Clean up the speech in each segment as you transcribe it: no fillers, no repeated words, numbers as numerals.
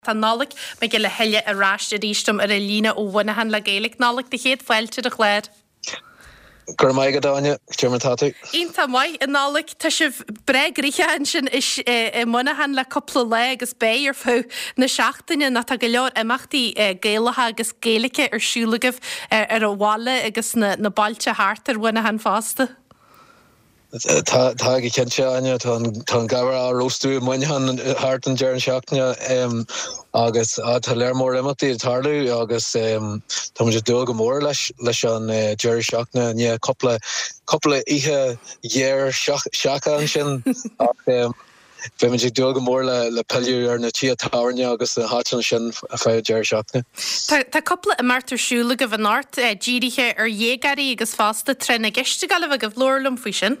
Tá Nollaig Mac Giolla Thuile ar ais arís liom ar an líne ó Mhuineachán le Gaeilge. Nollaig, do chéad fáilte ar an chlár. Go raibh maith agat, Áine. Cad é mar atá tú? Iontach maith, a Nollaig. Tá sibh breá gnoitheach ansin i Muineachán le cúpla lá agus beidh ar feadh na seachtaine nó tá go leor imeachtaí Gaelacha agus Gaeilge ar siúl agaibh ar an bhaile agus na bailte thart ar Mhuineachán fosta. Tá, tá go cinnte, Áine. Tá an, tá an gabhar á róstadh i Muineachán thart an deireadh seachtaine agus tá léar mór imeachtaí ag tarlú agus tá muid ag dúil go mór leis, leis an deireadh seachtaine i ndiaidh cúpla, cúpla oíche ghéar seaca ansin ach Beimid ag dúil go mór le pilleadh ar na tithe tábhairne agus na háiteanna sin ar feadh an deireadh seachtaine. Tá cúpla imeacht ar siúl agaibh anocht, dírithe ar dhéagóirí agus fosta Tráth na gCeist ag gabháil a bheith agaibh. Labhair liom faoi sin.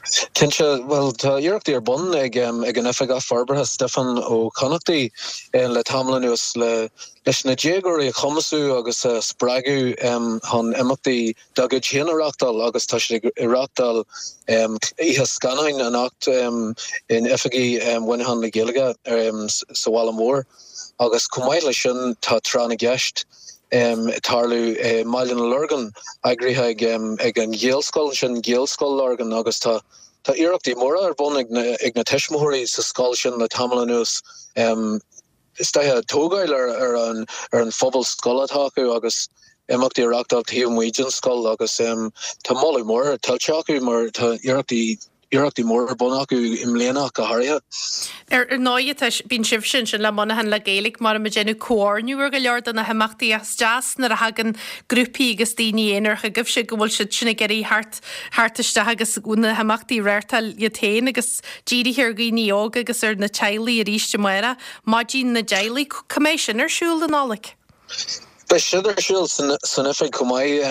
Cinnte. Bhuel, tá iarrachtaí ar bun ag an Oifigeach Forbartha, Stiofán Ó Connachtaigh, le tamall anuas leis na déagóirí a chumasú agus a spreagadh chun imeachtaí dá gcuid féin a reáchtáil agus tá siad ag reáchtáil oíche scannáin anocht in oifigí Mhuineachán le Gaeilge sa bhaile mór agus chomh maith leis sin tá Tráth na gCeist ag tarlú i mBaile na Lorgan eagraithe ag an Ghaelscoil ansin, Gaelscoil Lorgan agus tá tá iarrachtaí móra ar bun ag na tuismitheoirí sa scoil sin le tamall anuas. Is dóiche tógáil ar an ar an phobal scoile atá acu agus imeachtaí a reáchtáil taobh amuigh den scoil agus tá moladh mór tuillte acu mar tá iarrachtaí iarrachtaí móra ar bun acu i mbliana ach go háirithe. Ar ndóigh tá bíonn sibhse ansin le Muineachán le Gaeilge mar ag déanamh comhordnú ar go leor de na himeachtaí ach is deas nuair a thagann grúpaí agus daoine aonair chugaibhse go bhfuil siad sin ag iarraidh theacht theacht isteach agus na himeachtaí a reáchtáil iad féin agus dírithe ar dhaoine óga agus ar na teaghlaigh arís amárach, Maidin na dTeaghlach. Cá mbeidh sin ar siúl, a Nollaig? Beidh sin ar siúl san oifig chomh maith.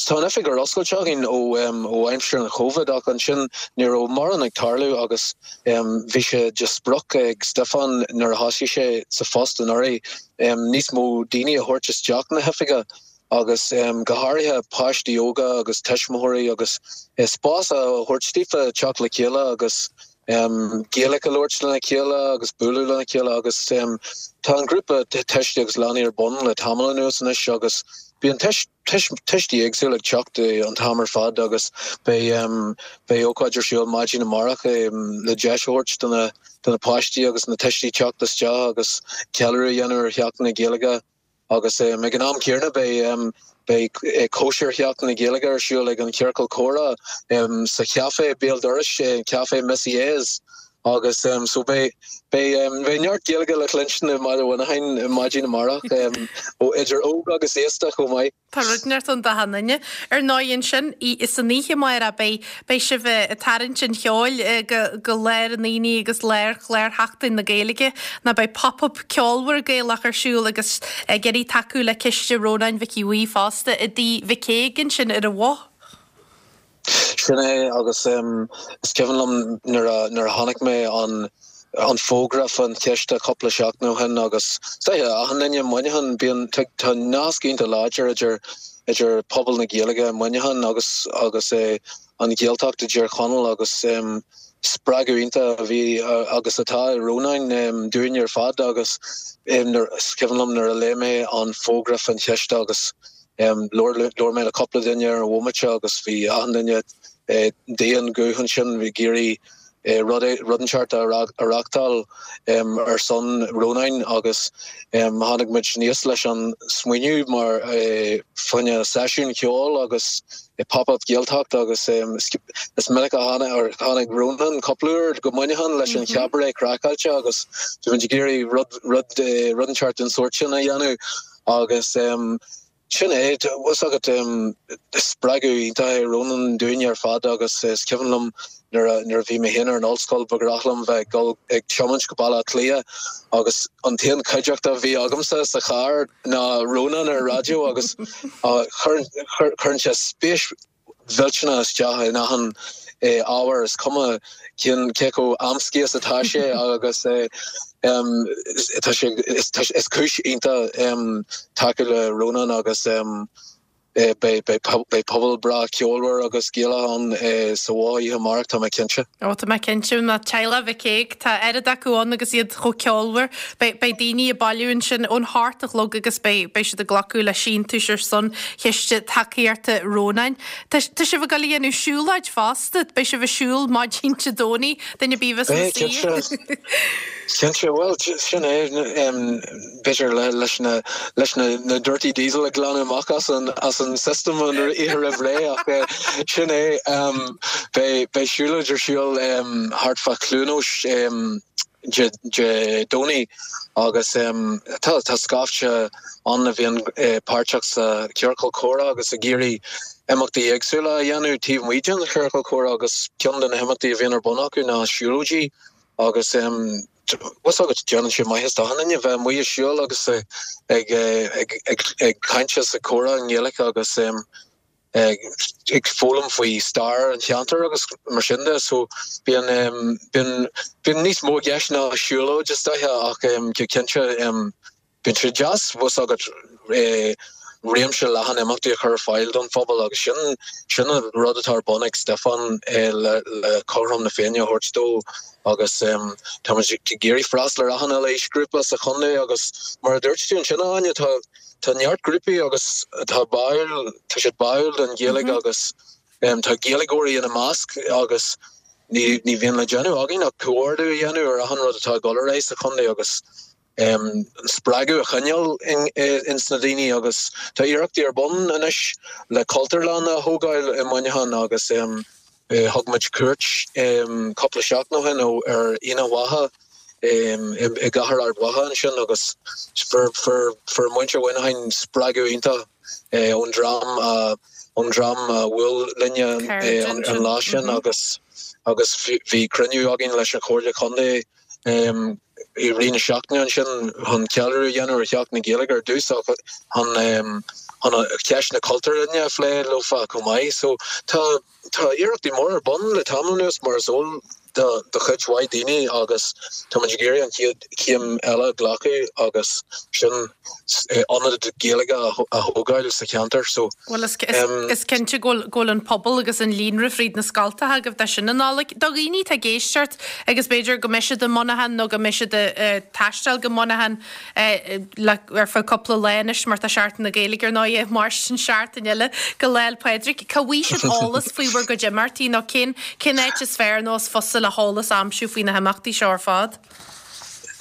Tá an oifig ar oscailt againn ó aimsir an Chovid ach ansin ní raibh mórán ag tarlú agus bhí sé de sprioc ag Stiofán nuair a thosaigh sé sa phost anuraidh níos mó daoine a thabhairt isteach na hoifige agus go háirithe páistí óga agus tuismitheoirí agus spás a thabhairt daofa teacht le chéile agus Gaeilge a labhairt lena chéile agus bualadh lena chéile agus tá an grúpa tuistí agus leanaí ar bun le tamall anuas anois agus bíonn tuistí éagsúla ag teacht an t-am ar fad agus beidh beidh ócáid ar siúl maidin amárach le deis a thabhairt do na do na páistí agus na tuistí teacht isteach agus ceiliúradh a dhéanamh ar Sheachtain na Gaeilge. Agus ag an am céanna beidh beidh cóisir Sheachtain na Gaeilge ar siúl ag an Chiorcal Comhrá sa chaifé béal dorais, Café Missy A's. Agus so beidh beidh beidh neart Gaeilge le cluinstin i mBaile Mhuineacháin maidin amárach ó idir óg agus aosta chomh maith. Tá rud inteacht ann d'achan duine. Ar ndóigh ansin, san oíche amárach, beidh, beidh sibh ag tarraingt an cheoil go, go lár an aonaigh agus lár chlár Sheachtain na Gaeilge nó beidh pop-up ceolmhar Gaelach ar siúl agus ag iarraidh tacú le Ciste Rónáin Mhic Aodha Bhuí fosta i dTigh Mhic Aoidh ansin ar an Bhoth. Sin é agus is cuimhin liom nuair a nuair a chonaic mé an an fógra fán chiste cúpla seachtain ó shin agus is dóiche achan duine i Muineachán bíonn tá nasc iontach láidir idir idir pobal na Gaeilge i Muineachán agus agus an Ghaeltacht i dTír Chonaill agus spreagadh iontach a bhí agus atá i Rónán dúinn ar fad agus is cuimhin liom nuair a léigh mé an fógra fán chiste agus Labhair mé le cúpla duine ar an bhomaite agus bhí achan duine d'aon ghuth ansin ag iarraidh rud rud inteacht a reáchtáil ar son Rónáin agus tháinig muid aníos leis an smaoineamh mar fá choinne seisiún ceoil agus pop-up Gaeltacht agus is minic a tháinig Rónán cúpla uair go Muineachán leis an Chabaret Craiceáilte agus bhí muid ag iarraidh rud rud rud inteacht den sórt sin a dhéanamh. Agus sin é, tá fhios agat, spreagadh iontach é Rónán dúinne ar fad agus is cuimhin liom nuair a, nuair a bhí mé féin ar an ollscoil ba ghnách liom bheith ag dul ag tiomáint go Baile Átha Cliath agus an t-aon chuideachta a bhí agamsa sa charr ná Rónán ar an raidió agus cuireann sé spéis mhillteanach isteach in achan ábhar, is cuma cén cé chomh amscaí is atá sé agus tá sé is cúis iontach tacú le Rónán agus. Beidh pobal breá ceolmhar agus Gaelach ann sa Bhoth oíche amárach, tá mé cinnte. Ó, tá mé cinnte, ná teaghlach Mhic Aoidh, tá oiread acu ann agus iad chomh ceolmhar. Beidh daoine ag bailiú ansin ón hocht a chlog agus beidh siad ag glacadh le síntiúis ar son chiste tacaíochta Rónáin. Tá sibh ag dul a dhéanamh siúlóid fosta, beidh sibh ag siúl maidin Dé Domhnaigh, duine ar bith a bheas ina suí. Cinnte, bhuel, sin é. b'fhéidir leis na leis na na dirty diesel a ghlanadh amach as an as an system an oíche roimh ré ach sin é beidh beidh siúlóid ar siúl thart fá Chluain Eois Dé Dé Domhnaigh agus tá tá scaifte ann a bhíonn páirteach sa chiorcal comhrá agus ag iarraidh imeachtaí éagsúla a dhéanamh taobh amuigh den chiorcal comhrá agus ceann de na himeachtaí a bhíonn ar bun acu ná siúlóidí agus bhfuil fhios agat, déanann sé maitheas d'achan duine bheith amuigh ag siúl agus ag ag caint is ag comhrá i nGaeilge agus ag foghlaim faoi stair an cheantair agus mar sin de. So bíonn bíonn bíonn níos mó i gceist ná siúlóid is dóiche ach go cinnte Bíonn sé deas, bhfuil fhios agat, réimse leathan imeachtaí a chur ar fáil don phobal agus sin sin an rud atá ar bun ag Stiofán le le cothrom na Féinne a thabhairt dó agus táimid ag iarraidh freastal ar achan uile aoisghrúpa sa chontae agus mar a dúirt tú ansin a Áine, tá tá neart grúpaí agus atá báúil, tá siad báúil don Ghaeilge agus tá Gaeilgeoirí ina measc agus ní ní bhíonn le déanamh againn ach comhordú a dhéanamh ar achan rud atá ag dul ar aghaidh sa chontae agus an spreagadh a choinneáil ins na daoine agus tá iarrachtaí ar bun anois le Cultúrlann a thógáil i Muineachán agus thug muid cuairt cúpla seachtain ó shin ar Aonach Mhacha i gcathair Ard Mhacha ansin agus fuair muintir Mhuineacháin spreagadh iontach ón dream a ón dream a bhuail linne an lá sin agus agus bhí cruinniú againn leis an Chomhairle Contae i rith na seachtaine ansin chun ceiliúradh a dhéanamh ar Sheachtain na Gaeilge ar dtús ach chun chun ceist na cultúrlainne a phlé leofa chomh maith. So tá tá iarrachtaí móra ar bun le tamall anuas mar is eol do do chuid mhaith daoine agus tá muid ag iarraidh an chéad chéim eile a ghlacadh agus sin ionad Gaeilge a thógáil sa cheantar. So Bhuel is is cinnte go bhfuil go bhfuil an pobal agus an líonra fríd na scoltacha agaibh de sin a Nollaig. Do dhaoine atá ag éisteacht agus b'fhéidir go mbeidh siad i Muineachán nó go mbeidh siad ag taisteal go Muineachán le ar feadh cúpla lá anois mar tá Seachtain na Gaeilge ar ndóigh ag mairstin seachtain eile go Lá 'le Pádraig. Cá bhfaighidh siad eolas faoi bhur gcuid imeachtaí nó cén cén áit is fearr nó is fusa le heolas a aimsiú faoi na himeachtaí seo ar fad?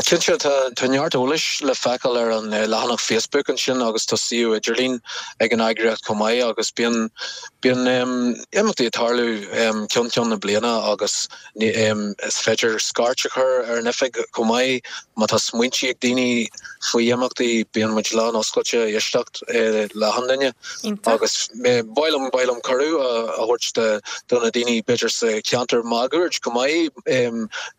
Cinnte, tá neart eolais le feiceáil ar an leathanach Facebook ansin agus tá suíomh idirlín ag an eagraíocht chomh maith agus bíonn bíonn imeachtaí ag tarlú ceann ceann na bliana agus is féidir scairt a chur ar an oifig chomh maith má tá smaointí ag daoine faoi imeachtaí, bíonn muid lán oscailte éisteacht le achan duine agus ba mhaith liom ba mhaith liom cuireadh a thabhairt do na daoine b'fhéidir sa cheantar máguaird chomh maith.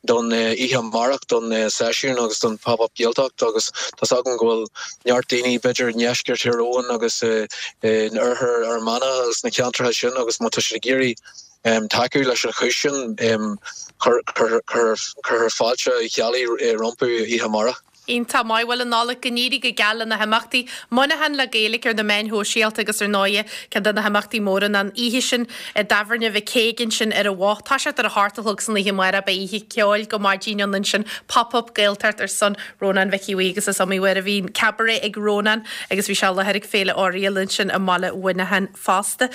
don oíche amárach, don seisiún agus don Pop Up Gaeltacht agus tá's agam go bhfuil neart daoine b'fhéidir i ndeisceart Thír Eoghain agus in oirthear Fhear Manach agus na ceantracha sin agus má tá siad ag iarraidh tacú leis an chúis sin cuirfear fáilte Uí Cheallaigh rompu oíche amárach. Iontach maith. Bhuel, a Nollaig, go n-éirí go geal le na himeachtaí. Muineachán le Gaeilge ar na meáin shóisialta agus ar ndóighe ceann de na himeachtaí móra ná an oíche sin i dTábhairne Mhic Aoidh ansin ar an Bhoth. Toiseacht ar a hocht a chlog san oíche amárach beidh oíche ceoil go maidin ann ansin, Pop Up Gaeltacht ar son Rónán Mhicí Bhuí agus is iomaí uair a bhíonn cabaret ag Rónán agus bhí sé i láthair ag Féile Oriel ansin i mbaile Mhuineacháin fosta.